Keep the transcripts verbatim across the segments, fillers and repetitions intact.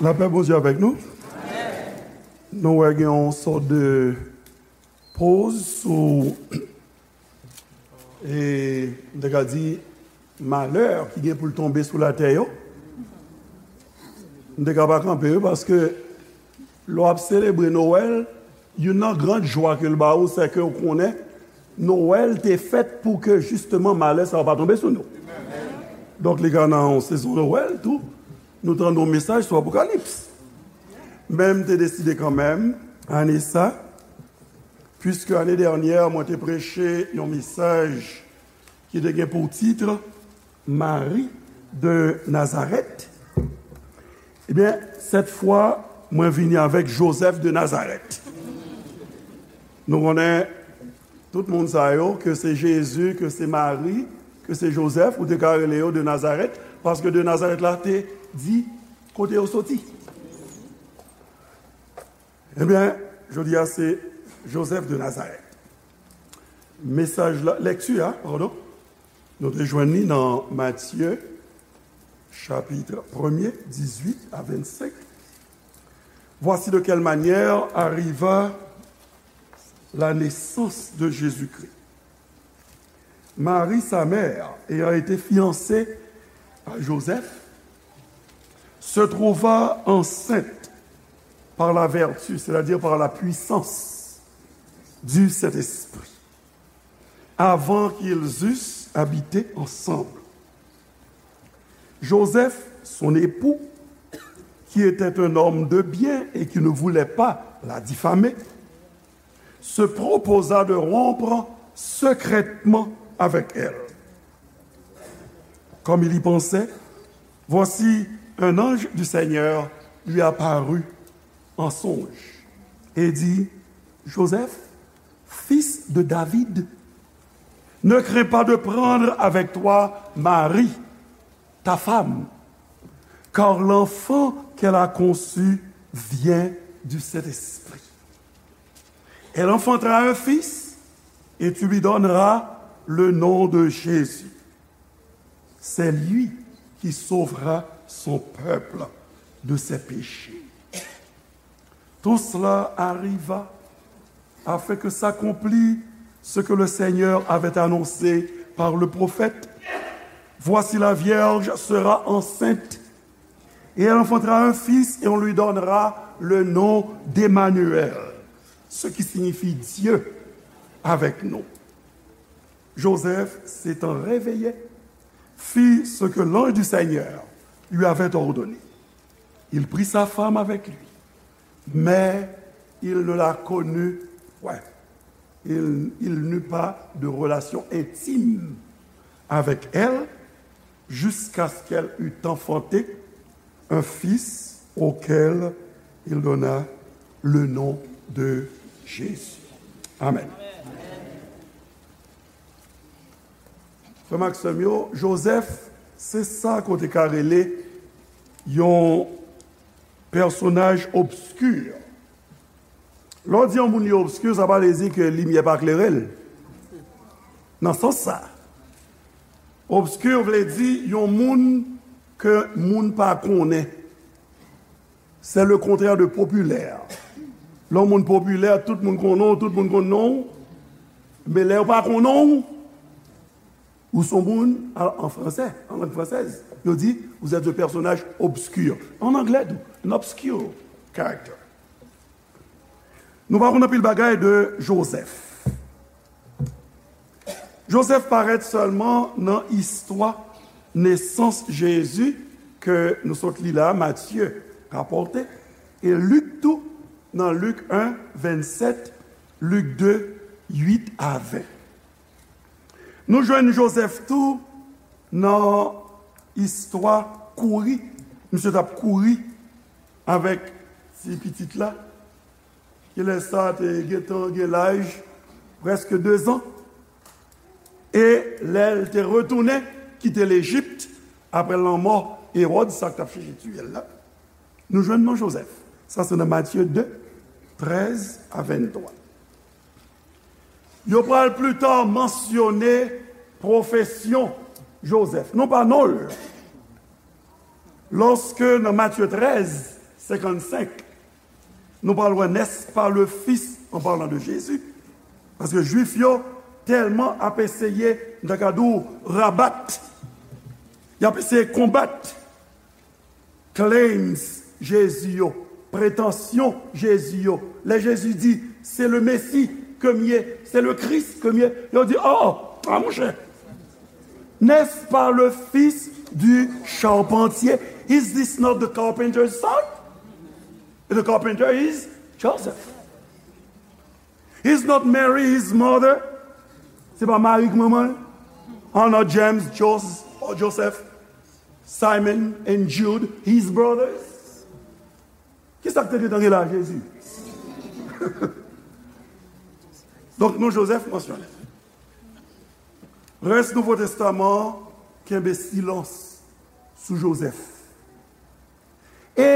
Lapè Bondye avèk nou. Nou wè gen yon sòt de poz sou, e, m te ka di, malè ki gen pou l tonbe sou latè yo. M te ka pa kanpe wi, paske lè w ap selebre Nwèl, youn nan gran jwa ke l ba ou, se ke w konnen Nwèl te fèt pou ke jisteman malè sa yo pa tonbe sou nou. Donk, li ka nan yon sezon Nwèl tou, nou tande yon mesaj sou Apokalips. Men m te deside kanmenm, ane sa, puiske ane dènyè, mwen te preche yon mesaj ki te gen pou tit Mari de Nazarèt. Ebyen, sèt fwa, mwen vini avèk Jozèf de Nazarèt. Nou konnen tout moun sa yo, ke se Jezi, ke se Mari, ke se Jozèf, ou te ka rele yo de Nazarèt, paske de Nazarèt la te di kote yo soti. Ebyen, jodi a se Jozèf de Nazarèt. Mesaj la, lèkti a, padon, nou te jwenn li nan Matye, chapitre premier, dix-huit à vingt-cinq. Voici de quelle manière arriva la naissance de Jésus-Christ. Marie, sa mère, ayant été fiancée à Joseph, se trouva enceinte par la vertu, c'est-à-dire par la puissance du Saint-Esprit, avant qu'ils eussent habité ensemble. Joseph, son époux, qui était un homme de bien et qui ne voulait pas la diffamer, se proposa de rompre secrètement avec elle. Comme il y pensait, voici un ange du Seigneur lui apparut en songe et dit, Joseph, fils de David, ne crains pas de prendre avec toi Marie, ta femme, car l'enfant qu'elle a conçu vient du Saint-Esprit. Elle enfantera un fils, et tu lui donneras le nom de Jésus. C'est lui qui sauvera son peuple de ses péchés. Tout cela arriva afin que s'accomplît ce que le Seigneur avait annoncé par le prophète. Voici, la vierge sera enceinte et elle enfantera un fils et on lui donnera le nom d'Emmanuel, ce qui signifie Dieu avec nous. Joseph, s'étant réveillé, fit ce que l'ange du Seigneur lui avait ordonné. Il prit sa femme avec lui, mais il ne la connut point. Il, il n'eut pas de relation intime avec elle jusqu'à ce qu'elle eût enfanté un fils auquel il donna le nom de Jésus. Amen. Frè m ak sè m yo, Jozèf, se sa ke w te ka rele yon pèsonaj obski. Lè w di yon moun li obski, sa pa vle di ke limyè pa klere l. Nan sans sa, obski vle di yon moun ke moun pa konnen. C'est le contraire de populaire. Lè yon moun popilè, tout moun konnen w, tout moun konn non w. Men lè yo pa konnen w, ou se yon moun, an fransè, an lang fransèz, yo di, vous êtes un personnage obscur. An anglè tou, an obscure character. Nou pa konn anpil bagay de Jozèf. Jozèf parèt sèlman nan istwa nesans Jezi ke nou sot li la, Matye rapòte, e Lik tou, nan Lik en, vennsèt, Lik de, uit a ven. Nou jwenn Jozèf tou nan istwa kouri. Misye t ap kouri avèk ti pitit la, ki lè sa a te gentan gen laj prèske dezan. E lè l te retounen kite Lejip, apre lanmò Ewòd, sa k t ap chèche tiye l la, nou jwenn non Jozèf. Sa se nan Matye de, trèz a venntwa. Yo pral pli ta mansyone pwofesyon Jozèf, non pa non l. Lòske nan Matye trèz, senkannsenk, nou pral wè n'est-ce pas le fils, en parlant de Jésus. Paske Jwif yo tèlman ap eseye, m ta ka di w, rabat, y ap eseye konbat claims Jezi yo, pretansyon Jezi yo. Lè Jezi di, c'est le Messie ke m ye, c'est le Christ ke m ye, yo di, oh, oh, ah, monchè, n'est-ce pas le fils du charpentier? Is this not the carpenter's son? The carpenter is Joseph. Is not Mary his mother? Se pa Mari k manman l? Are not James, Jos-, or Joseph, Simon and Jude his brothers? Kisa k te gentan gen la, Jezi? Donk, non Jozèf mansyone. Rès Nouvo Testaman an kenbe silans sou Jozèf. E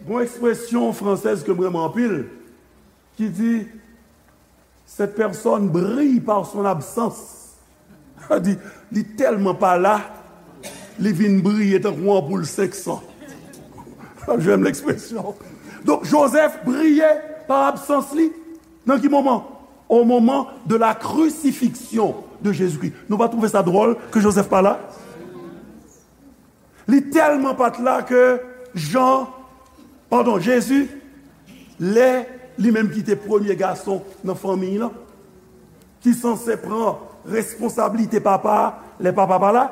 gon ekspresyon fransèz ke m renmen anpil, ki di, cette personne brille par son absence. Sa di, li tèlman pa la, li vin briye tankou yon anpoul senk san. J'aime l'expression. Donk, Jozèf briye pa absans li. Nan ki moman? Au moment de la crucifixion de Jésus-Christ. Nou pa twouve sa dwòl ke Jozèf pa la? Li tèlman pa t la ke Jan, padon, Jezi, lè li menm ki te premye gason nan fanmiy lan, ki sanse pran responsablite papa a lè papa pa la,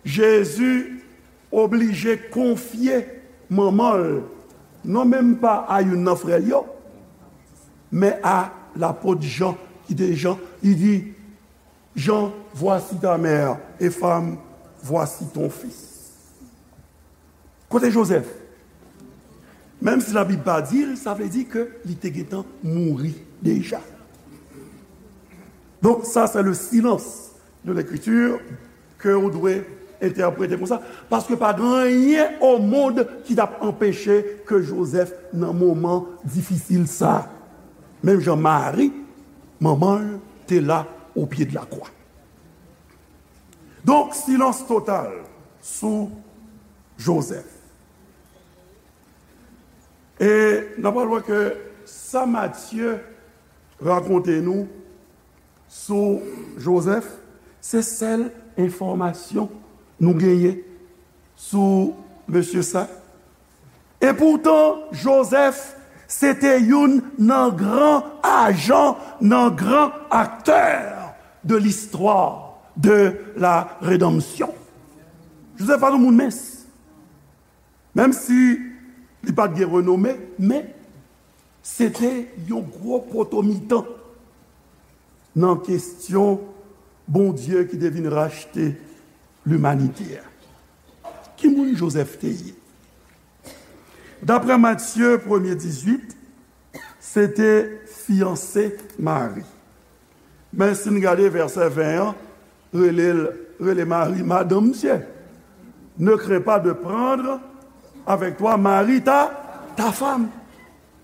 Jezi oblije konfye manman l, non menm pa a youn nan frè l yo, men a lapot Jan, ki te Jan, li di, Jean, voici ta mère, et femme, voici ton fils. Kote Jozèf? Menm si Labib pa di l, sa vle di ke li te gentan mouri deja. Donk, sa se le silence de l'Écriture ke ou dwe entèprete konsa, paske pa gen anyen o mond ki t ap anpeche ke Jozèf nan moman difisil sa. Menm jan Mari, manman l, te la o pye de la kwa. Donk, silans total sou Jozèf. E n ap pral wè ke sa Matye rakonte nou sou Jozèf, se sèl enfòmasyon nou genyen sou mesye sa. E poutan, Jozèf se te youn nan gran ajan, nan gran aktè de listwa de la redanmsyon. Jozèf pa t yon moun mens. Menm si li pa t gen renome, men se te yon gwo poto mitan nan kesyon Bondye ki te vin rachte limanite a. Ki moun Jozèf te ye? Daprè Matye premye dizuit, se te fiyanse Mari. Men si n gade vèsè ven an, rele l, rele Mari madanm misye. Ne crains pas de prendre avec toi Marie ta, ta femme.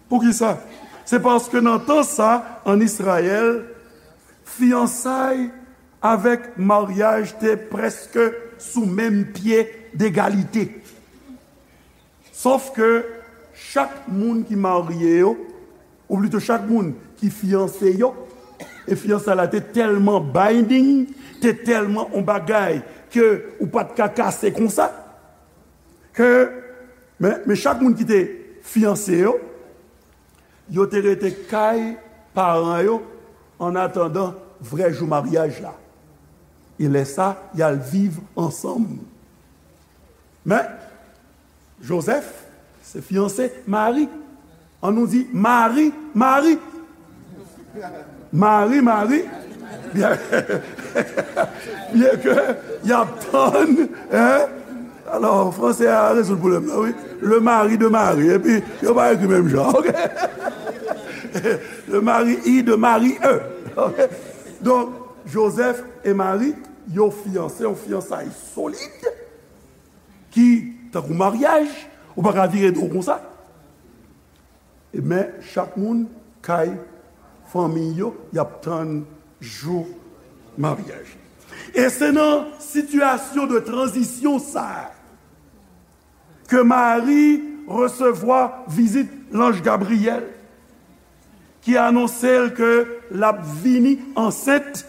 Poukisa? Se paske nan tan sa, an Izrayèl, fiyansay avèk maryaj te prèske sou menm pye degalite. Sof ke chak moun ki marye yo, ou plito chak moun ki fiyanse yo, e fiyansay la te tèlman binding, te tèlman on bagay ke ou pa t ka kase konsa, ke, men, men chak moun ki te fiyanse yo, yo te rete kay paran yo an atandan vrè jou maryaj la. E lè sa, y al viv ansanm. Men, Jozèf se fiyanse Mari. An nou di Mari, Mari. Mari, Mari. Byen, byen ke y ap tann, hein? Alò, fransè a rezoud pwoblèm nan, wi. Le mari de Mari. Epi, yo pa ekri menm jan, ok? Le mari I de Mari E. Ok? Donk, Jozèf e Mari, yo fiyanse, yon fiyansay solid, ki tankou maryaj, ou pa ka vire do w konsa. E men, chak moun kay fanmi yo, y ap tann jou maryaj. E se nan sitiyasyon de tranzisyon sa a ke Mari resevwa vizit lanj Gabriyèl, ki anonse l ke l ap vini ansent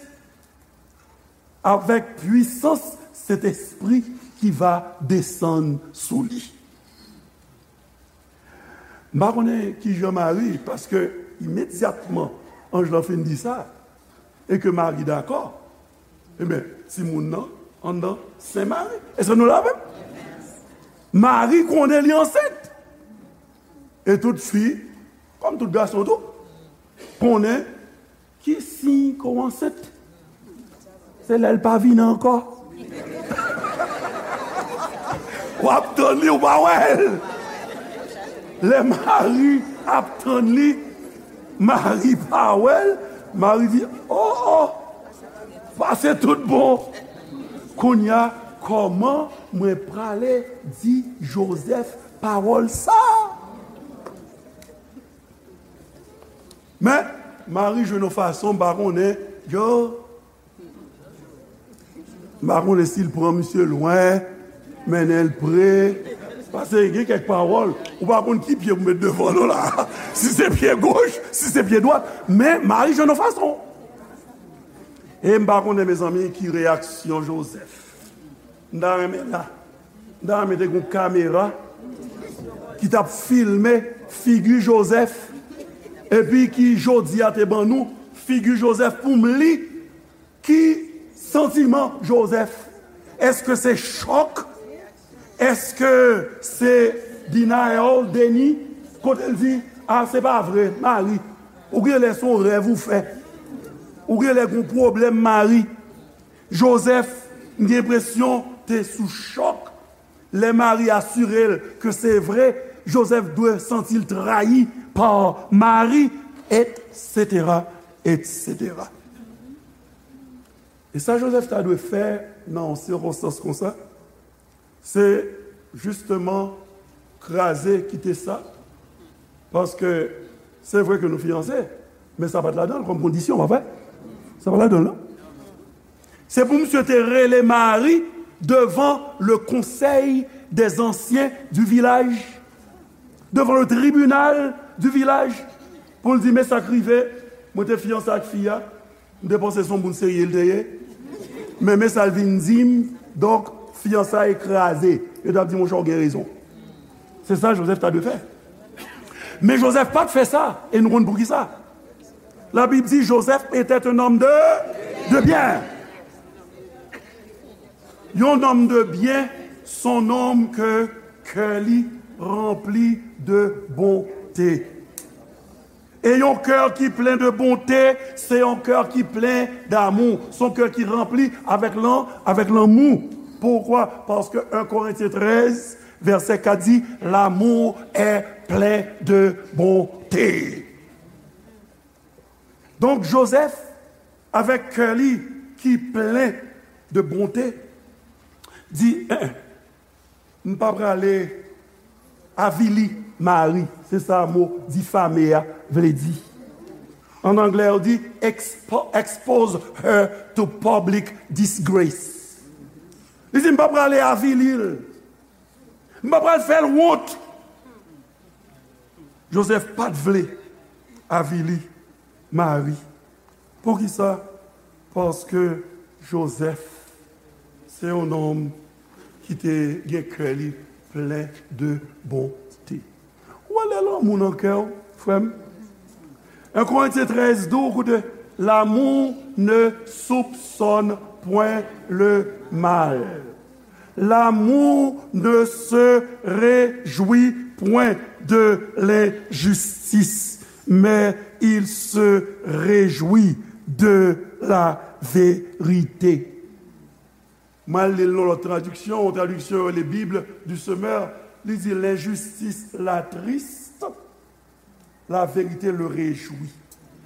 avèk pwisans Sentespri ki va desann sou li. M pa konnen kijan Mari, paske imedyatman anj lan fin di sa, e ke Mari dakò, ebyen, timoun nan anndan sen Mari. Èske nou la avè m? Mari konnen li ansent. E tout fi, kòm tout gason tou, konnen ki siy ke w ansent. Se lè l pa vini ankò. W ap tann li, ou pa wè l. Lè Mari ap tann li, Mari pa wè l. Mari di, o, o, pase tout bon. Kounye a, kòman mwen prale di Jozèf pawòl sa a? Men, Mari jwenn yon fason, m pa konnen, yo, m pa konnen si l pran misye lwen, mennen l pre, paske gen kèk pawòl, ou pa konn ki pye pou met devan non la, si se pye goch, si se pye dwat, men Mari jwenn yon fason. E m pa konnen, mezanmi, ki reyaksyon Jozèf. M ta renmen la. M ta renmen te gen yon kamera ki t ap filme figi Jozèf, epi ki jodi a te ban nou figi Jozèf pou m li. Ki santiman Jozèf? Èske se chòk? Èske se denial, deni? Kote l di, a, se pa vre, Mari. Ou gen lè se yon rèv ou fè. Ou gen lè gen yon pwoblèm, Mari. Jozèf, m gen enpresyon, te sou chòk. Lè Mari asire l ke se vre, Jozèf dwe santi l trayi pa Mari, etsetera, etsetera. E sa Jozèf ta dwe fè nan yon sikonstans konsa, se jisteman kraze, kite sa, paske se vre ke nou fiyanse, men sa pa t ladan l kòm kondisyon, pa vre? Sa pa t ladan l, non. Se pou misye te rele Mari devan le conseil des anciens du village, devan le tribunal du village, pou l di, men sa k rive, mwen te fiyanse ak fi a, m te panse se yon moun serye l te ye, men, men sa l vin di m, donk, fiyansay kraze. Yo t ap di, monchè, w gen rezon. Se sa Jozèf ta dwe fè. Men Jozèf pa t fè sa, e nou konn poukisa. Labib di, Joseph était un homme de, de bien. Yon nonm de byen, se yon nonm ke kè li ranpli de bonte. E yon kè ki plen de bonte, se yon kè ki plen damou. Se yon kè ki ranpli avèk lan-, avèk lanmou. Poukwa? Paske en Korentyen trèz, vèsè kat di, l'amour est plein de bonté. Donk, Jozèf, avèk kè li ki plen de bonte, di, en, en, m pa prale avili Mari. Se sa mo difame a vle di. An anglè, yo di, expo-, expose her to public disgrace. Li di, m pa prale avili l. M pa pral fè l wont. Jozèf pa t vle avili Mari. Poukisa? Paske Jozèf se yon nonm ki te gen kè li plen de bonte. Ou wè lè lanmou nan kè w, frè m? En Korentyen trèz di w, koute, l'amour ne soupçonne point le mal. L'amour ne se réjouit point de l'injustice, mais il se réjouit de la vérité. Mwen al li l nan lòt tradiksyon, yon tradiksyon yo rele Bible du Semeur, li di, l'injustice l'attriste, la vérité le réjouit.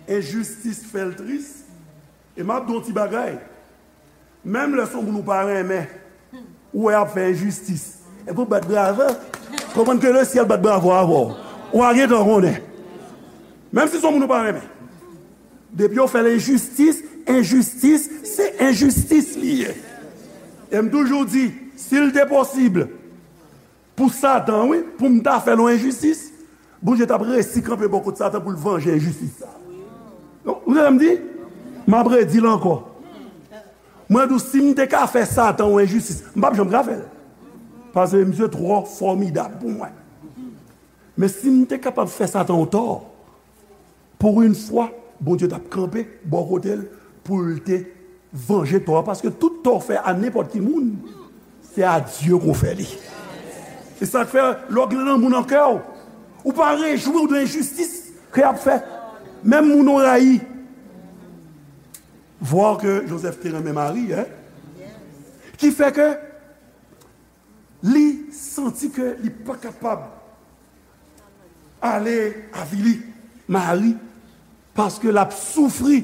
Enjistis fè l tris. E m ap di w yon ti bagay. Menm lè se yon moun ou pa renmen, ou wè ap fè enjistis, epi w bat bravo, konprann ke lesyèl bat bravo avè w. Ou a gentan konnen. Menm si se yon moun ou pa renmen. Depi yo fè l enjistis, enjistis, se enjistis li ye. E m toujou di, si l te posib, Pou Satan, wi, pou m ta fè l yon enjistis, Bondye t ap resi kanpe bò kot Satan pou l vanje enjistis sa. Ou tande sa m di? M ap redi l ankò. Mwen di w, si m te ka fè Satan yon enjistis, m p ap janm ka fè l. Paske misye twò fòmidab pou mwen. Men si m te kapab fè Satan yon tò, pou yon fwa, Bondye t ap kanpe bò kote l pou l te vanje tò a, paske tout tò w fè a nenpòt ki moun, se a Dye ke w fè li. Se sa k fè, lè w gen nan moun an kè w, ou pa rejwi w de enjistis ke y ap fè. Menm moun ou rayi. Vwa ke Jozèf te renmen Mari, en? Ki fè ke li santi ke li pa kapab ale avili Mari, paske l ap soufri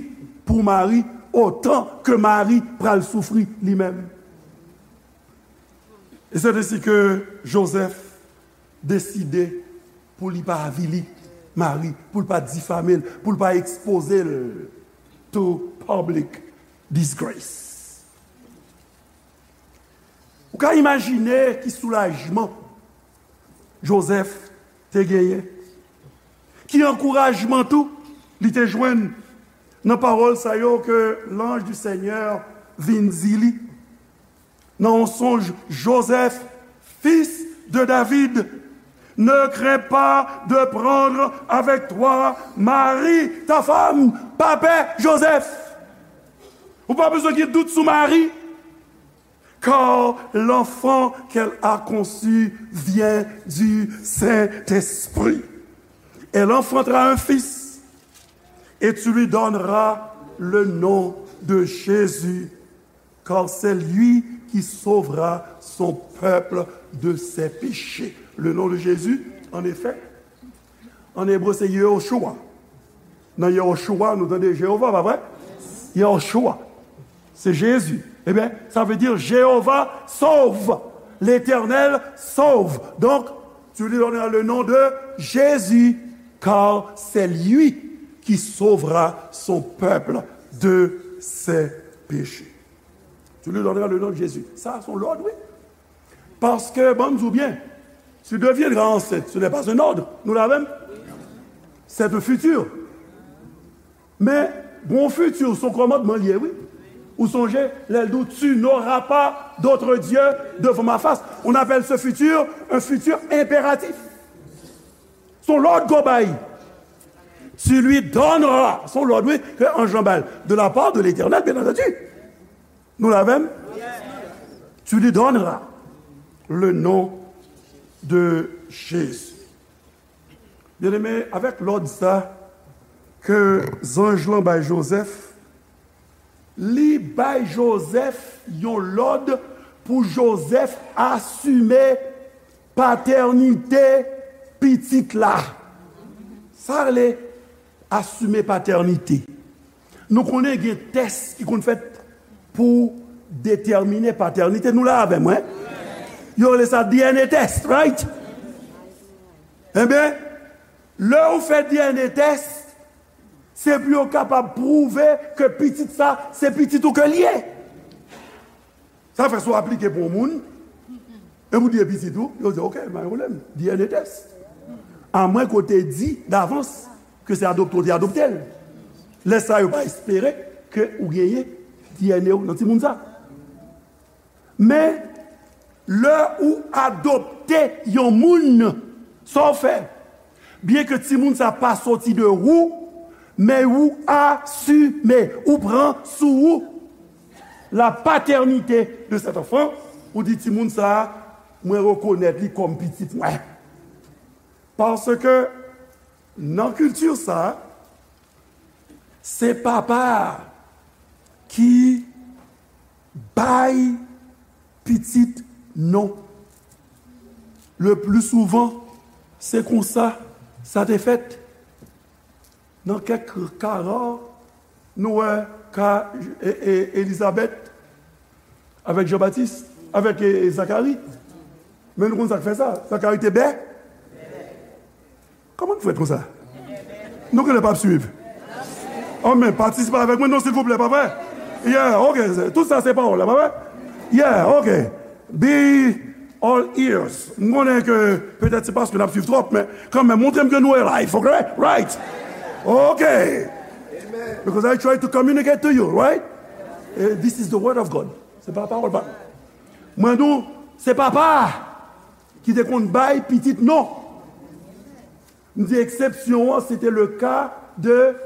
pou Mari otan ke Mari pral soufri li menm. E se ensi ke Jozèf deside pou li pa avili Mari, pou l pa difame l, pou l pa ekspoze l to public disgrace. Ou ka imajine ki soulajman Jozèf te genyen, ki ankourajman tou li te jwenn nan pawòl sa yo ke l'ange du Seigneur vin di li nan yon sonj: Joseph, fils de David, ne crains pas de prendre avec toi Marie, ta femme. Pa pè, Jozèf. Ou pa bezwen gen dout sou Mari. Car l'enfant qu'elle a conçu vient du Saint-Esprit. Elle enfantera un fils, et tu lui donneras le nom de Jésus, car c'est lui qui sauvera son peuple de ses péchés. Le nom de Jésus, en effet, an ebre, se Yehoshua. Nan Yehoshua, nou tande Jewova, pa vre? Yehoshua. Se Jezi. Ebyen, sa vle di Jewova sov. L'Éternel sauve. Donc, tu lui donneras le nom de Jésus, car c'est lui qui sauvera son peuple de ses péchés. Tu lui donneras le nom de Jésus. Sa, se yon lòd, wi. Paske, ban m di w byen, tu deviendras enceinte, ce n'est pas un ordre. Nou la menm? C'est un futur. Men, bon, futur, se yon kòmandman li ye, wi. Ou sonje, lè l di w, tu n'auras pas d'autre Dieu devant ma face. On appelle ce futur un futur impératif. Se yon lòd ke w bay. Tu lui donneras. Se yon lòd, wi, ke anj lan bay. De la part de l'Éternel, bien entendu. Nou la menm? Tu lui donneras le nom de Jésus. Byeneme, avèk lòd sa ke zanj lan bay Jozèf, li bay Jozèf yon lòd pou Jozèf asime patènite pitit la. Sa rele asime patènite. Nou konnen gen tès ki konn fèt pou detèmine patènite. Nou la avè mwen? Yo rele sa D N A test, right? Enben, lè ou fè D N A test, se pou yo kapab pwouve ke pitit sa, se pitit ou ke l ye. Sa fè si w aplike pou yon moun, e pou di e pitit ou, yo di, "Ok, pa gen pwoblèm, D N A test." Amwen ke w te di davans ke se adopte w te adopte l. Lè sa, yo pa espere ke ou genyen D N A w nan timoun sa. Men, lè ou adopte yon moun, sa w fè? Byenke timoun sa pa soti de ou, men ou asime, ou pran sou ou la patènite de cet enfant, ou di, "Timoun sa, mwen rekonèt li kòm pitit mwen." Paske nan kilti sa, se papa a ki bay pitit non. Le pli souvan, se konsa sa te fèt. Nan kèk ka ra, nou wè ka e, e, Elizabèt avèk Jan Batis, avèk e, e, Zakari. Men nou konn sa k fè sa. Zakari te bè. Kòman nou fè konsa? Nou genlè p ap swiv. Anmè, patisipe avèk mwen non, silvouplè, pa vre? Yeah, ok. Tout sa se pawòl la, pa vre? Yeah, ok. Bi, All ears. M konnen ke petèt se paske n ap swiv twòp, men kanmenm, montre m ke nou live, ok? Right? Ok. Because I try to communicate to you, right? Eh, this is the word of God. Se pa pawòl pa. Mwen di w, se papa ki te konn bay pitit non. M di eksepsyon an, se te le ka de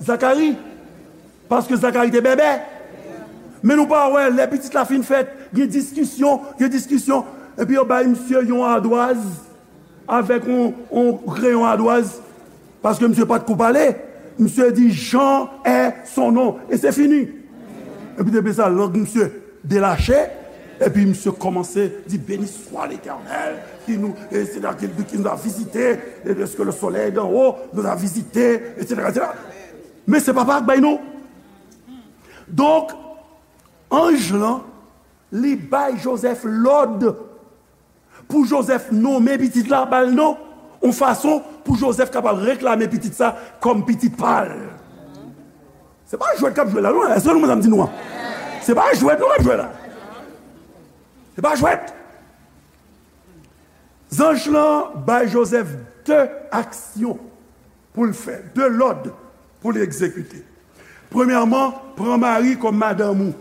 Zakari. Paske Zakari te bèbè. Men nou pa wè, lè pitit la fin fèt, gen diskisyon, gen diskisyon. Epi yo bay misye yon adwaz avèk yon, yon kreyon adwaz. Paske misye pa t ko pale. Misye di, Jean est son nom. E se fini. Epi depi sa, lang misye delache, epi misye kòmanse di, Béni soit l'Éternel, qui nous, et c'est là qu'il qui nous a visités, et est-ce que le soleil d'en haut nous a visités, et cetera, et cetera. Men se papa k bay non. Donk, anj lan, li bay Jozèf lòd pou Jozèf nonmen pitit la, ba l non, yon fason pou Jozèf kapab reklame pitit sa kòm pitit pa l. Se pa jwèt k ap jwe la, non. Èske nou konprann sa m di nou an? Se pa jwèt, non, k ap jwe la. Se pa jwèt. Zanj lan bay Jozèf de aksyon pou l fè, de lòd pou l egzekite. Premyèman, pran Mari kòm madanm ou.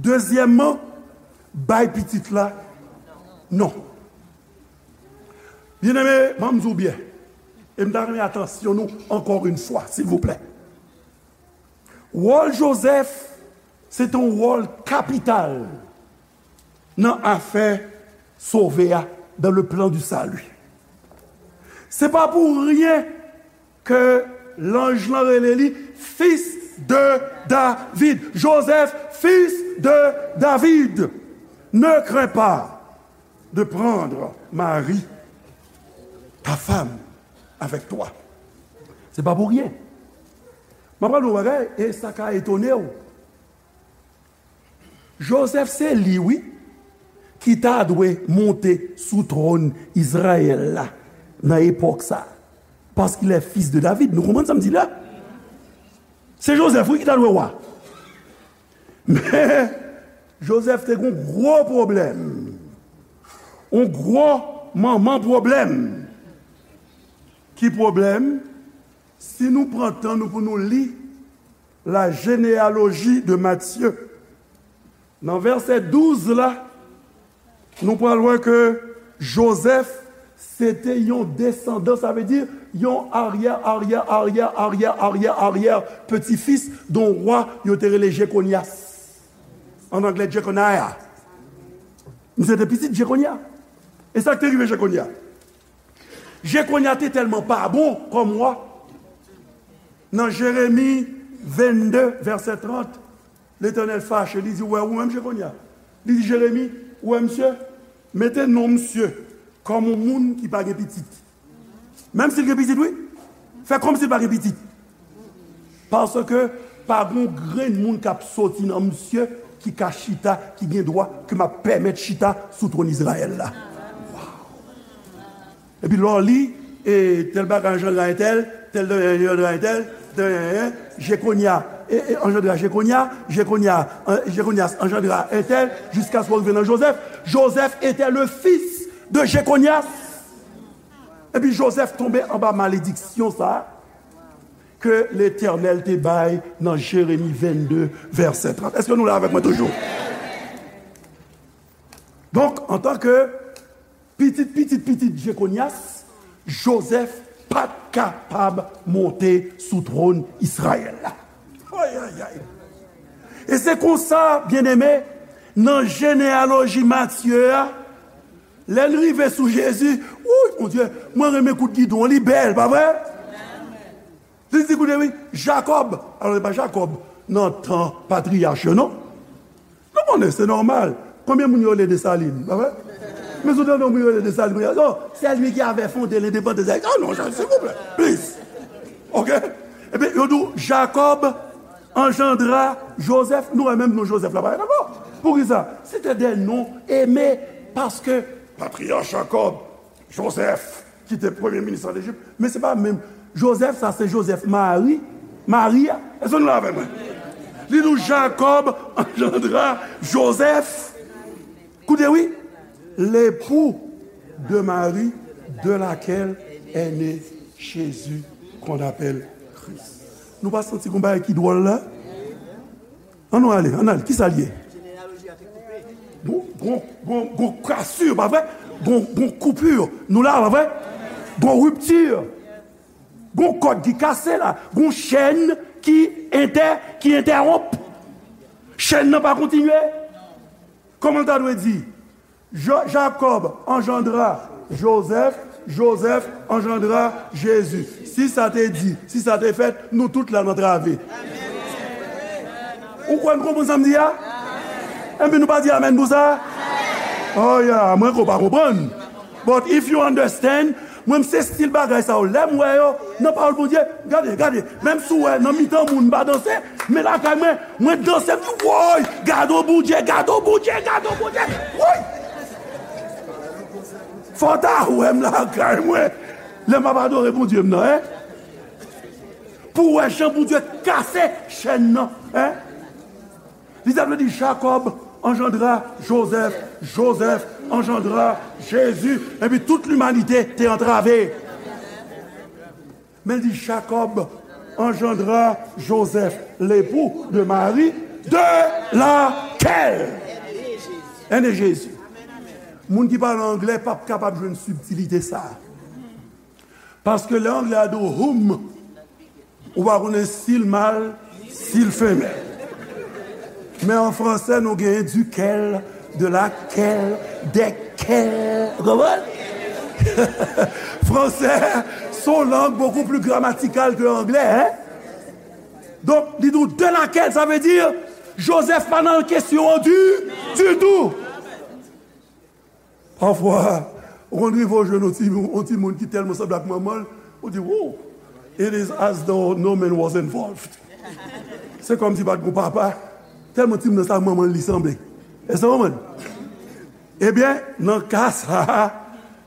Dezyèmman, bay pitit la non. Byeneme, ban m di w byen, e m ta renmen atansyon nou ankò yon fwa, silvouplè. Wòl Jozèf, se te yon wòl kapital nan afè sove a, dans le plan du salut. Se pa pou ryen ke lanj lan rele li fils de David. Joseph, fils de David, ne crains pas de prendre Marie, ta femme, avec toi. Se pa pou ryen. M ap pale yon bagay, e sa ka etone w. Jozèf se li, wi, ki ta dwe monte sou twòn Izrayèl la nan epòk sa a. Parce qu'il est fils de David. Nou konprann sa m di la? Se Jozèf, wi, ki ta dwe wa. Men, Jozèf te gen yon gwo pwoblèm. Yon gwo manman pwoblèm. Ki pwoblèm? Si nou pran tan nou pou nou li la généalogie de Matthieu, nan vèsè douz la, nou pral wè ke Jozèf se te yon desandan, sa vle di yon aryè, aryè, aryè, aryè, aryè, aryè peti fis de yon wa yo te rele Jekonyas. An anglè, Jeconiah. Misye te pitit Jekonya. E sa k te rive Jekonya? Jekonya te tèlman pa bon kòm wa. Nan Jeremi vennde, vèsè trant, Letènèl fache, li di, "Ou wè, ou menm Jekonya." Li di, "Jeremi, ou wè misye? Mete non misye kòm yon moun ki pa gen pitit." Menm si l gen pitit, wi. Fè kòmsi l pa gen pitit. Paske pa gen yon grenn moun k ap soti nan misye ki ka chita, ki gen dwa, ke m ap pèmèt chita sou twòn Izrayèl la. Epi lè w li, e, tèl bagay anjandra entèl, tèl bagay anjandra entèl, tèl, e, e, Jekonya, e, e, anjandra Jekonya, Jekonya, e, Jekonyas anjandra entèl, jiskaske w rive nan Jozèf. Joseph était le fils de Jeconias. Epi Jozèf tonbe anba malediksyon sa a ke Letènèl te bay nan Jeremi vennde, vèsè trant. Èske nou la avèk mwen toujou? Donk, antanke pitit, pitit, pitit Jekonyas, Jozèf pa t kapab monte sou twòn Izrayèl la. Ay, ay, ay. E se konsa, byeneme, nan jeneyaloji Matye a, lè n rive sou Jezi, wouy, Bondye, mwen renmen kout gidon, li bèl, pa vre? Li di, koute, wi, Jakòb. Alò, se pa Jakòb nan tan patriyach yo, non. Nou konnen, se nòmal. Konbyen moun yo rele Desalin, pa vre? Men si w tande yon moun yo rele Desalin, yo di, oh, c'est lui qui avait fondé l'indépendance. Ah non, silvouplè, please. Ok? Ebyen, yo di w, Jakòb anjandra Jozèf. Nou wè menm non Jozèf la parèt ankò. Poukisa? C'était des noms aimés, paske patriyach Jakòb, Jozèf, ki te premye minis an Ejip, men se pa menm Jozèf, sa se Jozèf Mari, Mari a. Èske nou la avèk mwen? Li di w Jakòb anjandra Jozèf. Koute wi, l'époux de Marie, de laquelle est né Jésus, qu'on appelle Christ. Nou pa santi gon bagay ki dwòl la? Ann nou ale, ann ale, kisa l ye? Gon, gon, gon, gon kasir, pa vre? Gon, gon koupir, nou la, pa vre? Gon riptir. Gon kòd ki kase la. Gon chèn ki entè, ki entèwonp. Chèn nan pa kontinye. Kòman l ta dwe di? Jo- Jacob engendra Joseph, Joseph engendra Jésus. Si sa te di, si sa te fèt, nou tout la n antrave. Ou kwè n konprann sa m di a? Enben nou pa di amèn pou sa? Oh yeah, mwen kwè w pa konprann. But if you understand, mwen m se stil bagay sa yo. Lè m wè yo nan pawòl Bondye, gade, gade, menm si w wè nan mitan moun m pa danse, men lakay mwen, mwen danse, m di, woy, gade w Bondye, gade w Bondye, gade w Bondye, woy! Fò w ta wè m lakay mwen, lè m ap adore Bondye m nan, en? Pou w wè jan Bondye kase chèn nan, en? Li ta vle di Jacob engendra Joseph, Joseph engendra Jésus, epi tout limanite te antrave. Men li di Jacob engendra Joseph, l'époux de Marie, de laquelle est né Jésus. Moun ki pale anglè p ap kapab jwenn sibtilite sa a. Paske lè anglè a di w whom, ou pa konnen si l mal, si l femèl. Men an fransè, nou genyen duquel, de laquelle, desquels. Ou konprann? Fransè, se yon lang beaucoup plus grammatical ke anglè, en? Donk, li di w de laquelle, sa vle di Joseph pa nan kesyon an du, du tout. Pafwa, ou konn rive w jwenn yon ti, yon timoun ki tèlman sanble ak manman l, ou di, wow, it is as though no man was involved. Se kòmsi pa t gon papa, tèlman timoun nan sa manman l li sanble. Èske w konprann? Ebyen, nan ka sa a,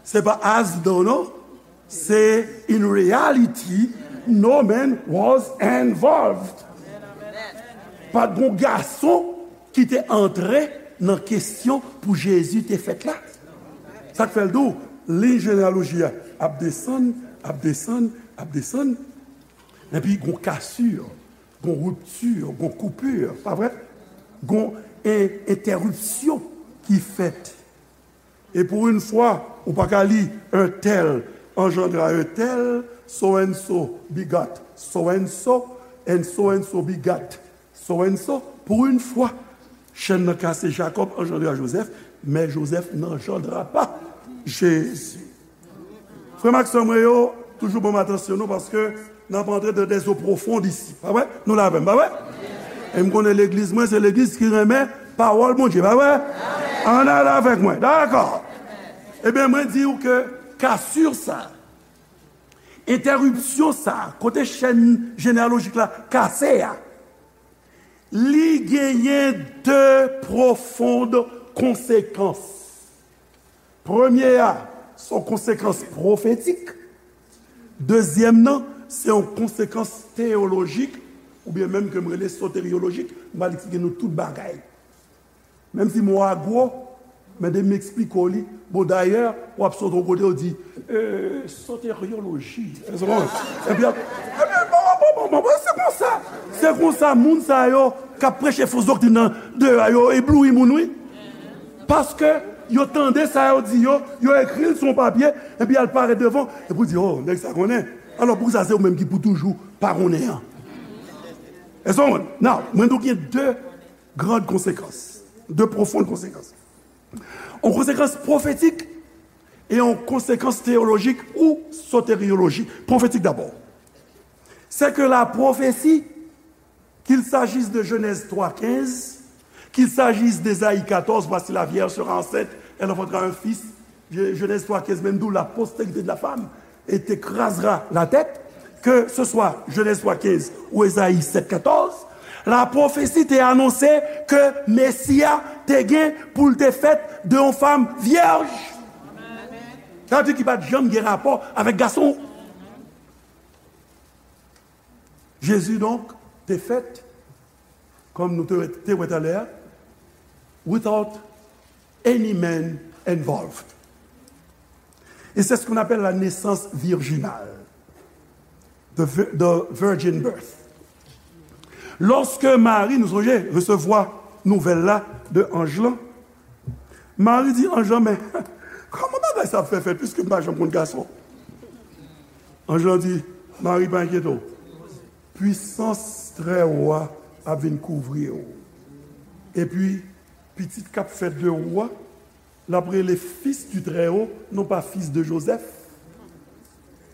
se pa as though non, se in reality, no man was involved. Pa t gon gason ki te antre nan kesyon pou Jezi te fèt la. Sa k fè l di w, liy jeneyaloji a ap desann, ap desann, ap desann, epi gon kasir, gon riptir, gon koupir, pa vre? Gon en-, entèripsyon ki fèt. E pou yon fwa, ou pa ka li un tel engendra un tel, so and so begot so and so, and so and so begot so and so. Pou yon fwa, chèn nan kase, Jacob engendra Joseph, mais Joseph n'engendra pas Jésus. Frè m ak sè mwen yo, toujou ban m atansyon nou, paske n ap antre dans des eaux profondes ici. Pa vre? Nou la avè m, pa vre? E m konnen legliz mwen, se legliz ki renmen pawòl Bondye, pa vre? Ann ale avèk mwen, dakò? Ebyen, mwen di w ke kasir sa, entèripsyon sa, kote chèn jeneyalojik la kase a, li genyen de pwofond konsekans. Premye a, se yon konsekans pwofetik. Dezyèm nan, se yon konsekans teyolojik, oubyen menm ke m rele soteryolojik, m pral eksplike nou tout bagay. Menm si mo a gwo, men de m eksplike w li. Bon, dayè, w ap sot yon kote, w di, euh, soteryoloji. Èske w konprann? Epi, epi, bon, bon, bon, bon, bon, se konsa. Se konsa, moun sa yo k ap preche fos doktrin nan, deyò a, yo ebloui moun, wi. Paske yo tande sa yo di yo, yo ekri l sou yon papye, epi al parèt devan, epi w di, oh, nèg sa konnen. Alò, poukisa se ou menm ki pou toujou pa konnen an? Èske w konprann? Now, mwen di w gen de grand konsekans, de pwofond konsekans. Yon konsekans pwofetik e yon konsekans teyolojik ou soteryolojik. Pwofetik dabò. C'est que la prophétie, qu'il s'agisse de Genèse trois quinze, qu'il s'agisse d'Ésaïe quatorze, voici la vierge sera enceinte, elle enfantera un fils, Genèse trois quinze, menm di w la postérité de la femme, et t'écrasera la tête, que ce soit Genèse trois quinze ou Ésaïe sept quatorze, la pwofesi te anonse ke Mesi a te gen pou l te fèt de yon fanm vyèj. Sa vle di ki pa t janm gen rapò avèk gason. Jezi, donk, te fèt, kòm nou te, te wè talè a, without any man involved. Et c'est ce qu'on appelle la naissance virginale, the, vi- the virgin birth. Lòske Mari, nou sonje, resevwa nouvèl la de anj lan, Mari di anj lan, men, kòman bagay sa ap fè fèt, piske m pa janm konn gason? Anj lan di, Mari, pa enkyete w. Pwisans Trè Wo a ap vin kouvri w. Epi, pitit k ap fèt de ou a, l ap rele Fils du Très-Haut, non pas fils de Joseph,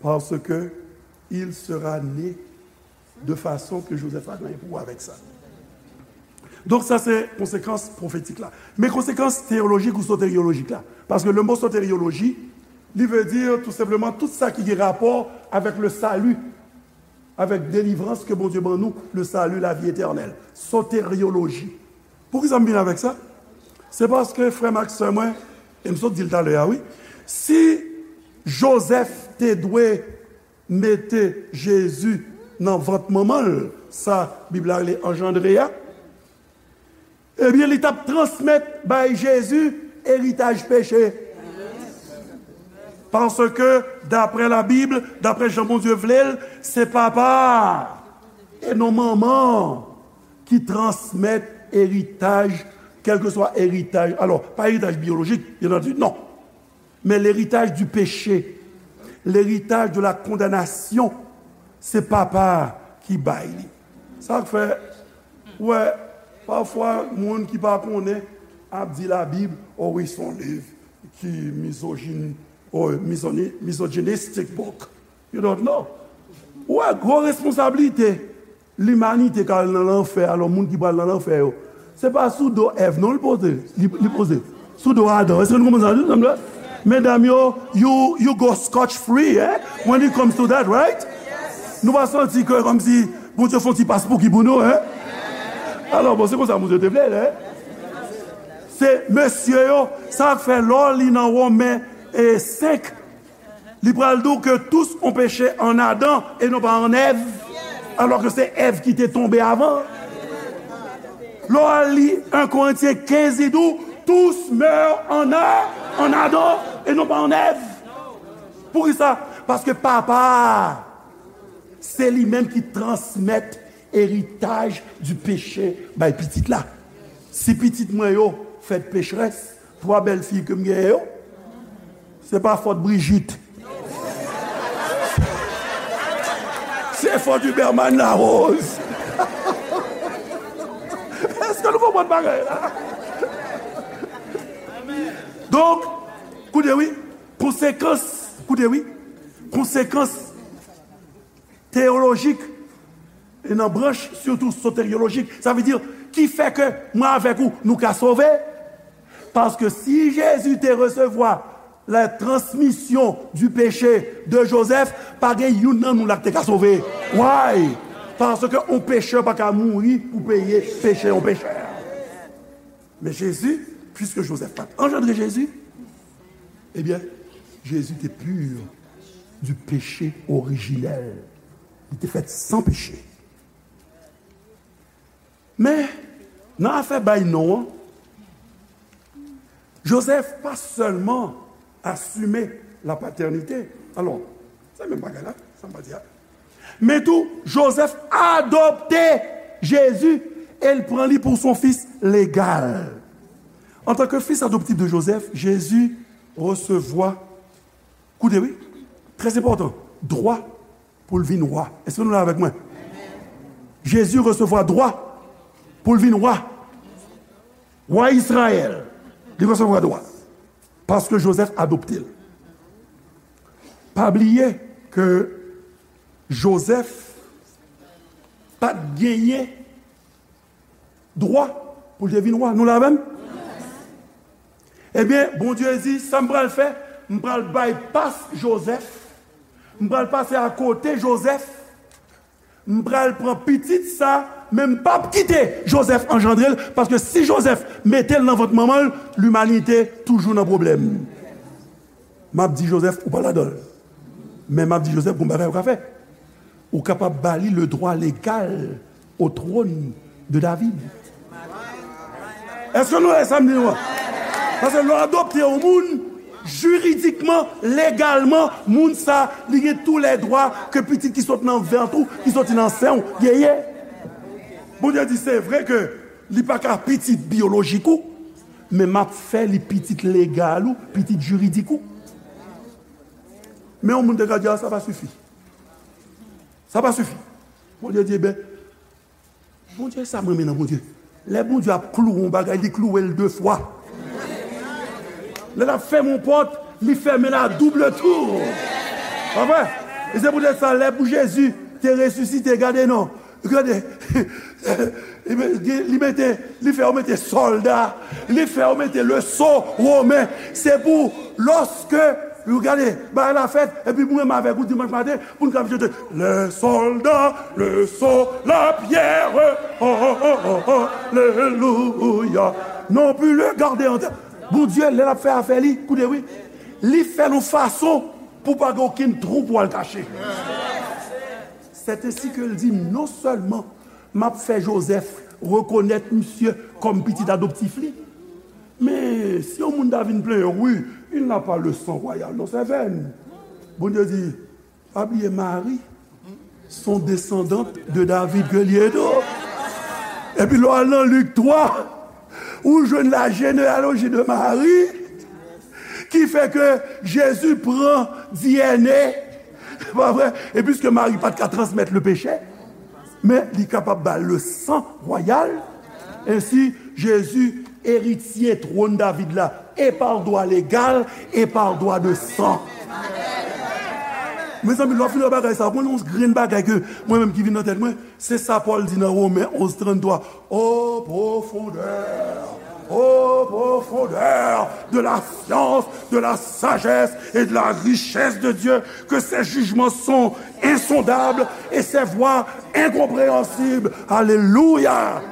parce que il sera né de façon que Joseph pa gen pou wè avèk sa. Donk, sa se konsekans pwofetik la. Men konsekans teyolojik ou soteryolojik la. Paske le mo soteryoloji, li vle di tou senpleman tout sa ki gen rapò avèk le salut, avec délivrance que Bondye ban nou, le salut, la vie éternelle. Soteryoloji. Poukisa m vin avèk sa? Se paske frè m ak sè mwen, e m sot di l talè a, wi. Si Jozèf te dwe mete Jezi nan vant manman l, sa Bib la rele anjandre a, ebyen, li t ap transmèt bay Jezi eritaj peche. Paske, daprè Labib, daprè jan Bondye vle l, se papa a e non manman an ki transmèt eritaj, kèlkeswa eritaj. Alò, pa eritaj biyolojik, bien entendu, non. Men leritaj di peche, leritaj de la kondanasyon, se papa a ki bay li. Sa k fè, w wè, pafwa, moun ki pa konnen ap di Labib, o wi, se yon liv ki mizojin, o mizoni, misogynistic book. You don't know. Ou wè, gwo responsablite limanite k al nan lanfè, alò, moun ki pral nan lanfè yo, se pa sou do Èv non li poze, li, li poze. Sou do Adan. Èske nou konprann sa? Medam yo, you, you go scotch free, eh? When it comes to that, right? Nou pa santi ke kòmsi Bondye fè yon ti pas pou ki pou nou, eh? Alò, bon, se konsa Bondye te vle l, eh? Se mesye yo, sa k fè lè w li nan Women e senk, li pral di w que tous ont péché en Adam et non pas en Èv, alò ke se Èv ki te tonbe avan. Lè w al li en Korentyen kenz, li di w, tous meurent en, A- en Adam et non pas en Èv. Poukisa? Paske papa a, se li menm ki transmèt eritaj di peche bay pitit la. Si pitit mwen yo fèt pecherès, twa bèl fi ke m genyen yo, se pa fòt Brigitte. Se fòt Huberman Larose. Èske nou konprann bagay la? Donk, koute wi, konsekans, koute wi, konsekans teyolojik, e nan branch sitou soteryolojik, sa vle di, ki fè ke mwen avèk ou, nou ka sove. Paske si Jezi te resevwa la transmisyon di peche de Jozèf, pa gen youn nan nou la ki te ka sove. Why? Paske yon pechè pa ka mouri pou peye peche yon pechè. Men Jezi, piske Jozèf pa t anjandre Jezi, ebyen, Jezi te pur du péché originel. Li te fèt san peche. Men, nan afè bay non an, Jozèf pa sèlman asime la patènite. Alò, se menm bagay la, sa m pa di a. Men tou, Jozèf adopte Jezi e l pran li pou son fis legal. Antanke fis adoptif de Jozèf, Jezi resevwa, koute wi, trè enpòtan, dwa pou l vin wa. Èske nou la avèk mwen? Jezi resevwa dwa pou l vin wa. Wa Izrayèl, li resevwa dwa. Paske Jozèf adopte l. Pa bliye ke Jozèf pa t genyen dwa pou l te vin wa. Nou la avè m? Ebyen, Bondye di, sa m pral fè, m pral bypass Jozèf, m pral pase akote Jozèf, m pral pran pitit sa, men m p ap kite Jozèf anjandre l, paske si Jozèf mete l nan vant manman l, limanite toujou nan pwoblèm. M ap di Jozèf, ou pa ladan l. Men m ap di Jozèf, gon bagay ou ka fè. Ou kapab ba li le droit légal au trône de David. Èske nou wè sa m di nou an? Paske lè w adopte yon moun, jiridikman, legalman, moun sa, li gen tou lè dwa ke pitit ki sot nan vant ou, ki soti nan sen w, genyen. Bondye di, se vre ke li pa ka pitit biyolojik ou, men m ap fè li pitit legal ou, pitit jiridik ou. Men yon moun te ka di, a, sa pa sifi. Sa pa sifi. Bondye di, ben, Bondye, sa m renmen nan Bondye. Lè Bondye ap klouwe yon bagay, li klouwe l de fwa. Lè l ap fèmen yon pòt, li fèmen l a double tou. Pa vre? E se poutèt sa, lè pou Jezi te resisite, gade non. Gade. Li mete, li fè yo mete sòlda. Li fè yo mete le sceau romain. Se pou lòske, gade, bagay la fèt, epi mwen menm avèk ou dimanch maten, pou n ka chante, les soldats, le sceau, la pierre, oh, oh, oh, oh, oh, alléluia. Non plus le garder en terre. Bondye, lè l ap fè afè li, koute wi, li fè l yon fason pou pa gen okenn twou pou al kache. C'est ainsi que l di, non sèlman m ap fè Jozèf rekonèt misye kòm pitit adoptif li, men si yon moun ta vin plenyen, wi, il n'a pas le sang royal dans ses veines. Bondye di, pa bliye Mari, son desandant de David ke li ye tou. Epi lè w al nan Lik twa, ou jwenn la genealoji de Mari, ki fè ke Jezi pran D N A, pa vre? E piske Mari pa t ka transmèt le peche, men li kapab ba le san wayal. Ensi, Jezi eritye twòn David la, e pa dwa legal, e pa dwa de san. Mezanmi, lè w fin wè bagay sa, mwen, yon grenn bagay ke mwen menm ki vin nan tèt mwen, se sa Pòl di nan Women onz tranntwa, ô profondeur, ô profondeur de la science, de la sagesse et de la richesse de Dieu, que ses jugements sont insondables et ses voies incompréhensibles. Alléluia.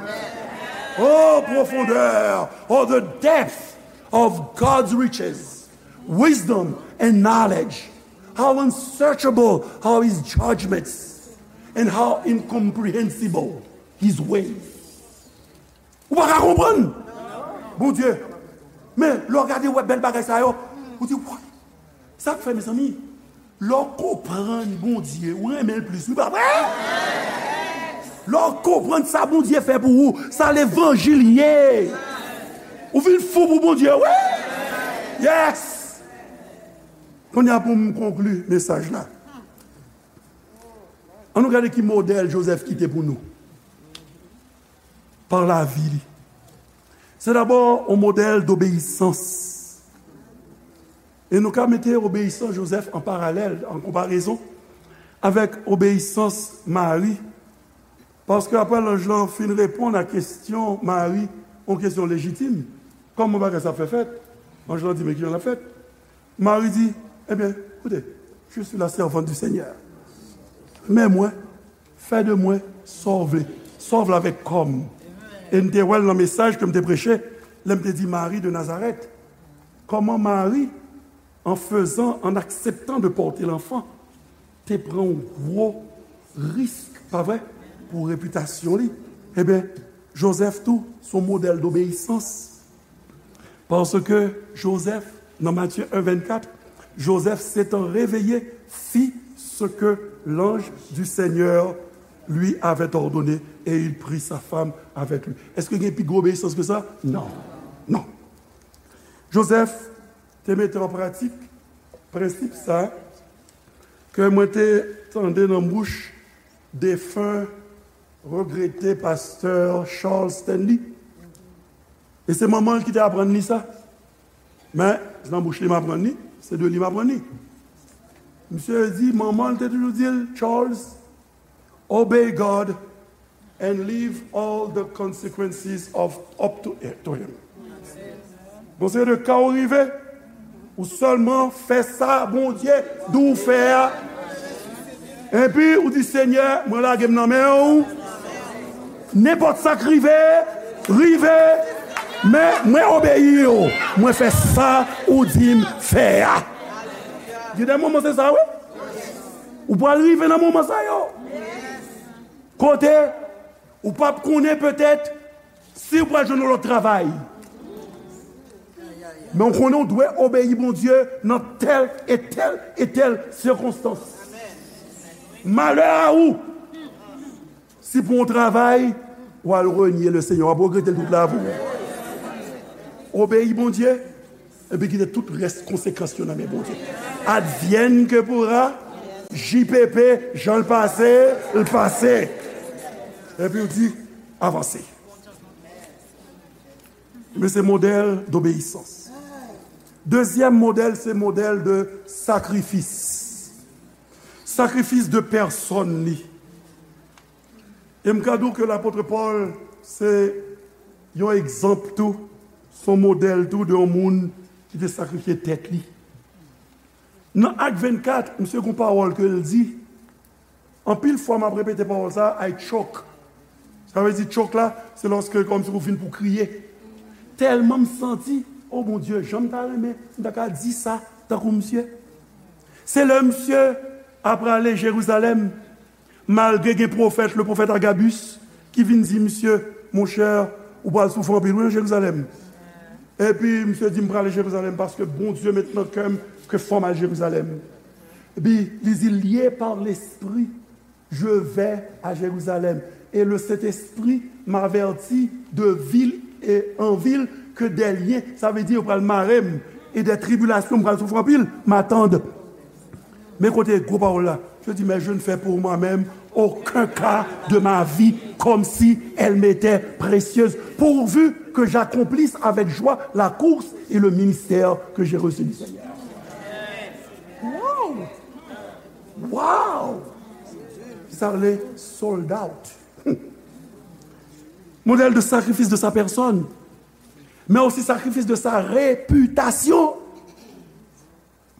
Oh profondeur, oh the depth of God's riches, wisdom and knowledge. How unsearchable are his judgments and how incomprehensible his ways. Ou pa ka konprann Bondye. Men, lè w gade, w wè bèl bagay sa yo, ou di, "Wa, sa k fè, mezanmi?" Lè w konprann Bondye, ou renmen l plis, wi, pa vre? Lè w konprann sa Bondye fè pou ou, sa levanjil ye. Ou vin fou pou Bondye, wi. Yes! Kounye a, pou m konkli mesaj la, ann nou gade ki modèl Jozèf kite pou nou pa lavi li. Se dabò yon modèl dobeyisans. E nou ka mete obeyisans Jozèf an paralèl, an konparezon, avèk obeyisans Mari. Paske apre lanj lan fin reponn a kesyon Mari, yon kesyon lejitim, kòman bagay sa ap fè fèt? Anj lan di, "Men kijan l ap fèt?" Mari di, "Ebyen, koute, je suis la servante du Seigneur. Men mwen, fè de mwen sa w vle, sa w vle avèk kò m." E n te wè l nan mesaj ke m te preche, lè m te di Mari de Nazarèt. Kòman Mari, en faisant, en acceptant de porter l'enfant, te pran yon gwo risk, pa vre, pou repitasyon li. Ebyen, Jozèf tou, se yon modèl dobeyisans. Parce que Joseph, dans Matthieu un vingt-quatre, Joseph s'étant réveillé, fit ce que l'ange du Seigneur lui avait ordonné, et il prit sa femme avec lui. Èske gen pi gwo obeyisans ke sa? Non. Non. Joseph te mete an pratik prensip sa ke mwen te tande nan bouch defen, regrete pastè Charles Stanley. E se manman l ki te aprann li sa. Men, se nan bouch li m aprann li, se de li m aprann li. Misye di, manman l te toujou di l, "Charles, obey God and leave all the consequences of up to, to him." Bon, se de ka w rive, ou sèlman fè sa Bondye di w fè a. Epi, ou di, "Senyè, mwen lage m nan men w. Nenpòt sa k rive, rive, men mwen obeyi w. Mwen fè sa ou di m fè a." Gen de moman se sa, wi. Ou pral rive nan moman sa yo. Kote ou p ap konnen petèt si ou pral jwenn yon lòt travay. Men w konnen w dwe obeyi Bondye nan tèl e tèl e tèl sikonstans. Malè a ou si pou yon travay, w al renye le Senyè, w ap regrete l tout lavi w. Obeyi Bondye, epi kite tout rès konsekans yo nan men Bondye. Advienne que pourra, J P P, jan l pase, l pase. Epi w di, avanse. Men se modèl dobeyisans. Dezyèm modèl, se modèl de sakrifis. Sakrifis de pèsòn li. E m ka di w ke lapot Pòl se yon egzanp tou, se yon modèl tou de yon moun ki te sakrifye tèt li. Nan Ak vennkat, misye gen yon pawòl ke l di, anpil fwa m ap repete pawòl sa a, I choke. Sa vle di choke la, se lòske kòmsi ou fin pou kriye. Tèlman m santi, o Bondye, jan m ta renmen m ta ka di sa tankou misye. Se lè misye ap prale Jerizalèm, malgre gen pwofèt, le pwofèt Agabus, ki vin di misye, monchè, ou pral soufri anpil wi nan Jerizalèm. Epi misye di, m prale Jerizalèm paske Bondye met nan kè m ke fò m al Jerizalèm. Epi li di, lié par l'esprit, je vais à Jérusalem. Et le Saint-Esprit m'avertit de ville et en ville que des liens, sa vle di yo pral mare m, et des tribulations, m pral soufri anpil, m'attendent. Men kote gwo pawòl la. Je dis, mais je ne fais pour moi-même aucun cas de ma vie comme si elle m'était précieuse, pourvu que j'accomplisse avec joie la course et le ministère que j'ai reçu du Seigneur. Wow! Wow! Sa rele sold out. Modèl de sakrifis de sa pèsòn, men osi sakrifis de sa repitasyon.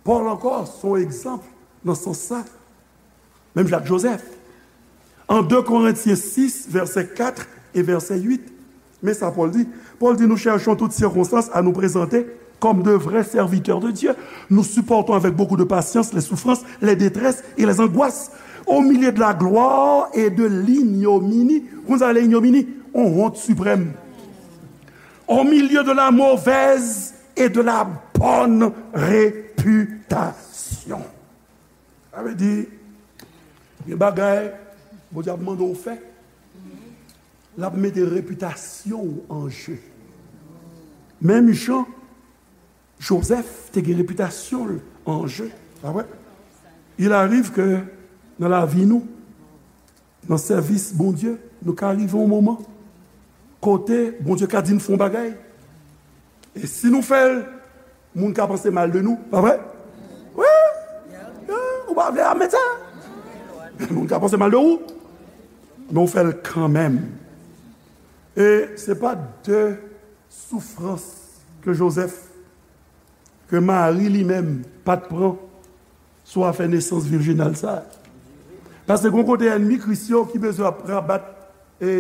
Pòl ankò se yon egzanp nan sans sa. Menm jan ak Jozèf. An de Korentyen sis, vèsè kat e vèsè uit, men sa Pòl di. Pòl di, nous cherchons toutes circonstances à nous présenter comme de vrais serviteurs de Dieu. Nous supportons avec beaucoup de patience les souffrances, les détresses et les angoisses. Au milieu de la gloire et de l'ignominie. Konn sa le ignominie? On honte suprême. Au milieu de la mauvaise et de la bonne réputation. Sa vle di, gen bagay Bondye ap mande w fè, l ap mete repitasyon w an je. Menm jan Jozèf te gen repitasyon l an je, pa vre? Il arrive que nan lavi nou, nan sèvis Bondye, nou ka rive yon moman kote Bondye ka di n fè yon bagay. E si nou fè l, moun ka panse mal de nou, pa vre? Wi! Ou pa vle admèt sa. Moun ka panse mal de ou, men ou fè l kanmenm. E se pa de soufrans ke Jozèf, ke Mari li menm pa t pran sou afè nesans virjinal sa a. Paske gon kote ènmi Kris yo ki bezwen ap rabat e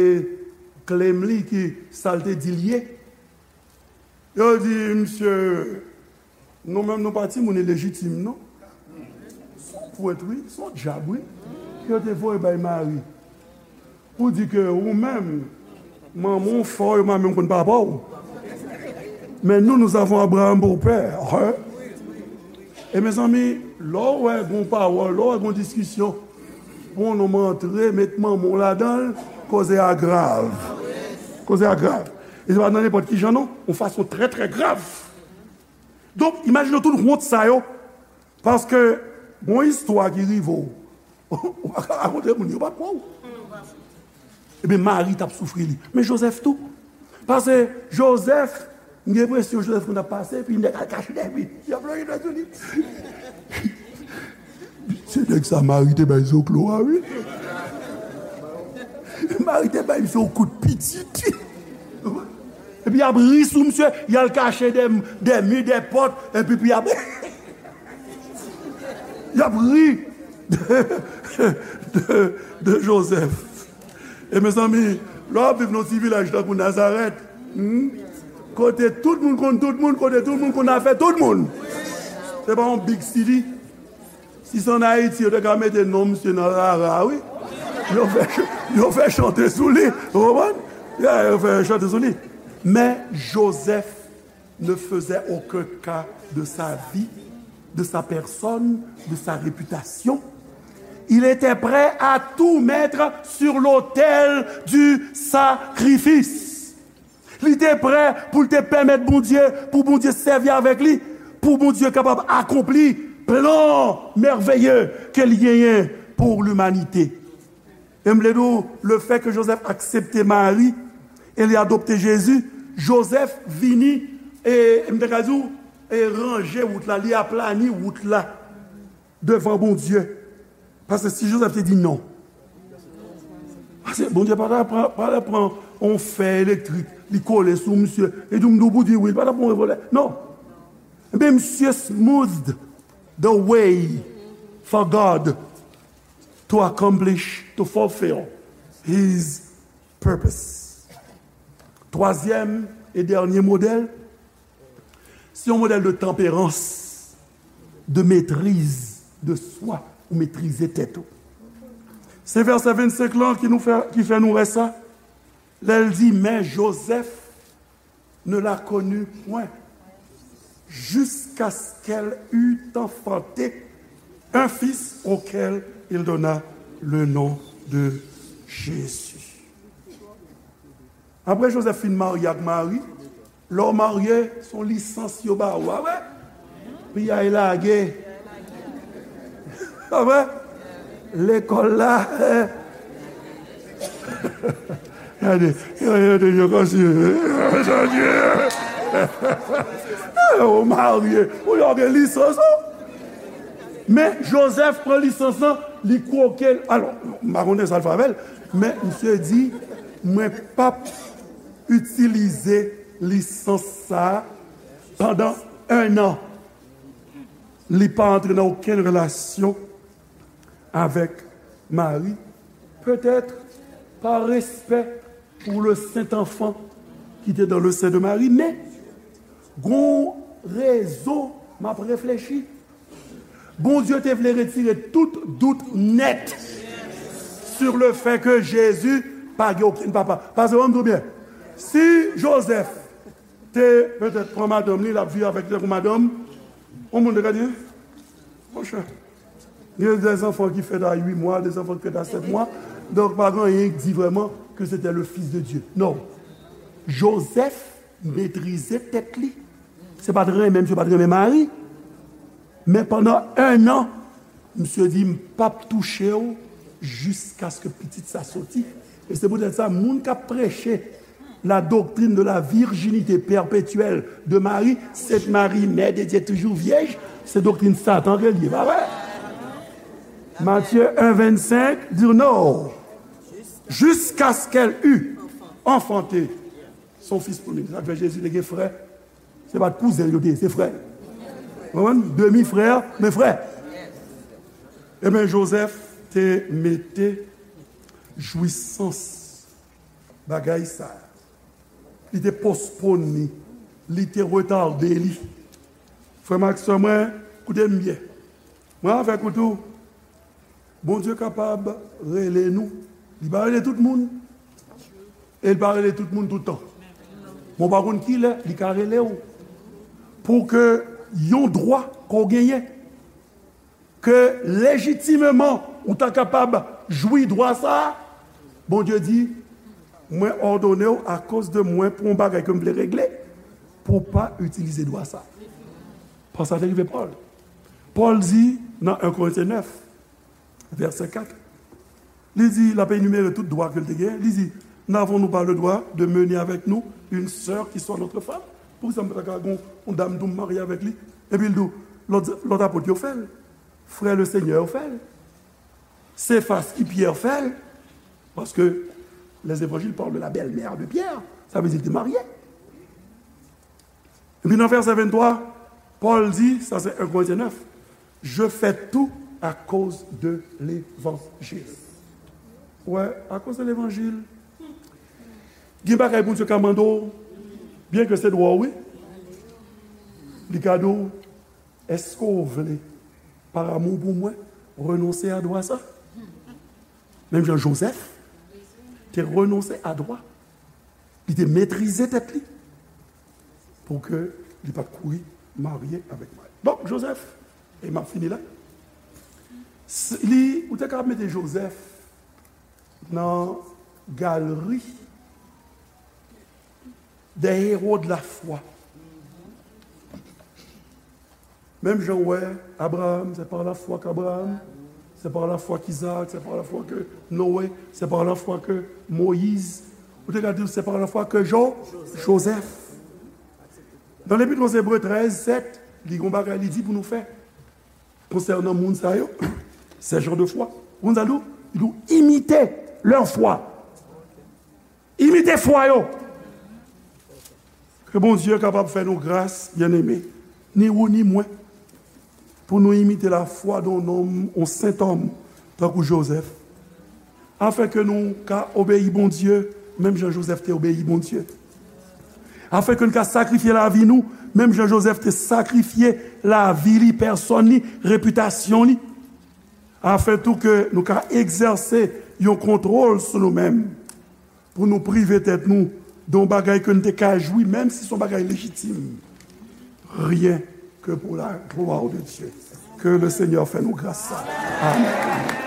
klem li ki sa l te di l ye. Yo di, misye, nou menm nou pa timoun ilejitim non. Se yon pwent wi, se yon dyab wi. Ke yo te voye bay Mari. Pou di ke ou menm, manman w fè w, yo pa menm konn papa w. Men nou, nous avons Abraham pour père. Hein? E mezanmi, lè w wè gon pawòl, lè w wè gon diskisyon, pou yon nonm antre, met manman w ladan l, koze a grav. Koze a grav. E se pa nan nenpòt ki jan non, yon fason trè, trè grav. Donk, imajine w tout wont sa yo, paske gon istwa ki rive w, ou pa ka rakonte moun, yo p ap kwè w. Ebyen, Mari t ap soufri li. Men Jozèf tou. Paske Jozèf, m gen enpresyon Jozèf konn ap pase, epi nèg al kache dèyè li. Y ap lonje dwèt sou li. Se nèg sa Mari te bay zoklo a, wi. Mari te bay misye yon kout pitit. Epi y ap ri sou misye, y al kache dè, dè mi, dè pòt, epi, epi y ap, y ap ri de, de, de Jozèf. E mezanmi, lè w ap viv nan yon ti vilaj tankou Nazarèt, hmm, kote tout moun konn tout moun, kote tout moun konn afè tout moun. Se pa yon big city. Si se ann Ayiti, yo te ka mete non misye nan rara, wi. Yo fè, yo fè chante sou li, ou konprann? Ya, yo fè chante sou li. Men Jozèf, ne faisait aucun cas de sa vie, de sa personne, de sa réputation. Il était prêt à tout mettre sur l'autel du sacrifice. Li te prè pou l te pèmèt Bondye, pou Bondye sèvi avèk li, pou Bondye kapab akonpli plan mèveye ke li genyen pou limanite. E m vle di w, le fait que Joseph aksepte Mari e li adopte Jezi, Joseph vini, e m te ka di w, e ranje wout la, li aplani wout la devan Bondye. Paske si Joseph te di non, paske Bondye pa ta pran, pa ta pran yon fè elektrik, li kole sou misye, e di m di w pou di wi, li pa ta pran yon revòlvè. Non. Ebyen, misye smoothed the way for God to accomplish, to fulfill his purpose. Twazyèm e dènye modèl, se yon modèl de tanperans, de maîtrise de soi, ou metrize tèt ou. Se vèsè vennsenk lan ki nou fè, ki fè nou wè sa. Lè l di, mais Joseph ne la connut point jusqu'à ce qu'elle eût enfanté un fils auquel il donna le nom de Jésus. Apre Joseph fin marye ak Mari, lè w marye, se yon lisans yo ba ou, a vre? Piyay lage. A vre? Lekòl la, eh. Gade, gade, gade, yo kòmsi, eh, ou marye, ou yo gen lisans ou. Men Joseph pran lisans lan, li kwoke l. Alò, m pa konnen sa l fè avè l, men misye di, mwen p ap itilize lisans sa a pandan en an. Li pa antre nan okenn relasyon avèk Mari, petèt pa respè pou le sent anfan ki te dans le sein de Marie, men gon rezon m ap reflechi. Bondye te vle retire tout dout nèt sur le fait que Jezi pa gen okenn papa. Paske, ban m di w byen, si Joseph te petèt pran madanm li, l ap viv avèk li tankou madanm, yon moun te ka di, monchè, gen des enfants ki fèt a uit mwa, des enfants ki fèt a sèt mwa, donk pa gen anyen ki di vrèman ke se te le Fils de Dieu. Non. Joseph metrize tèt li. Se pa t renmen misye pa t renmen Mari. Men pandan en an, misye di, m p ap touche w jiskaske pitit sa soti. E se poutèt sa, moun k ap preche la doctrine de la virginité perpétuelle de Marie, Sainte Marie, Mère de Dieu, toujours vierge, se doktrin Satan ke l ye, pa vre? Matthieu un vingt-cinq di, non, jusqu'à ce qu'elle eût enfanté son fils premier. Sa k fè Jezi te gen frè. Se pa t kouzen l yo te ye, se frè. Konprann? Demi frè, men frè. Ebyen, Joseph te mete jwisans bagay sa a. Li te pospone li, li te retade li. Frè m ak sè mwen, koute m byen. Mwen avèk ou tou, Bondye kapab rele nou. Li pa rele tout moun. E li pa rele tout moun tout tan. Men w pa konn kilè li ka rele w. Pou ke yon dwa ke w genyen, ke lejitimeman ou ta kapab jwi dwa sa a, Bondye di, mwen òdone w akoz de mwen pou yon bagay ke m vle regle, pou w pa itilize dwa sa a. Paske sa te rive Pòl. Pòl di nan en Korentyen nèf, vèsè kat, li di, l ap enimere tout dwa ke l te genyen, li di, n'avons-nous pas le droit de mener avec nous une sœur qui soit notre femme? Poukisa m pa ta ka gen yon dam tou m marye avèk li? Epi l di w, lòt, lòt apot yo fè l. Frè Lesenyè yo fè l. Sefas ki Pyè fè l. Paske les évangiles parlent de la belle-mère de Pierre. Sa vle di l te marye. Epi nan vèsè venntwa, Pòl di, sa se en Korentyen nèf, je fais tout à cause de l'évangile. Wè, akoz de levanjil. Gen bagay Bondye ka mande w, byen ke se dwa w, wi. Li ka di w, èske w vle, par amour pour moi, renonse a dwa sa? Menm jan Joseph te renonse a dwa. Li te metrize tèt li. Pou ke Li pa t kouri marye avèk Mari. Donk, Jozèf, e m ap fini la, s- li, ou te ka mete Jozèf nan galri des héros de la foi. Menm jan w wè Abraham, c'est par la foi qu'Abraham, c'est par la foi qu'Isaac, c'est par la foi que Noé, c'est par la foi que Moïse. Ou te ka di, c'est par la foi que Jo, Joseph. Nan Lepit aux Hébreux trèz, sèt, li gon bagay li di pou nou fè konsènan moun sa yo, ces gens de foi. Ou konn sa l di w? Li di w, imite leur foi. Imite fwa yo. Ke Bondye kapab fè nou gras, byeneme, ni ou ni mwen, pou nou imite lafwa d'un homme, yon sentòm, tankou Jozèf, afin ke nou ka obeyi Bondye, menm jan Jozèf te obeyi Bondye, afin ke nou ka sakrifye lavi nou, menm jan Jozèf te sakrifye lavi li, pèsòn li, repitasyon li, afin tou ke nou ka egzèse yon kontwòl sou nou menm, pou nou prive tèt nou de yon bagay ke nou te ka jwi, menm si se yon bagay lejitim, rien que pour la gloire de Dieu. Ke le Senyè fè nou gras sa. Amèn.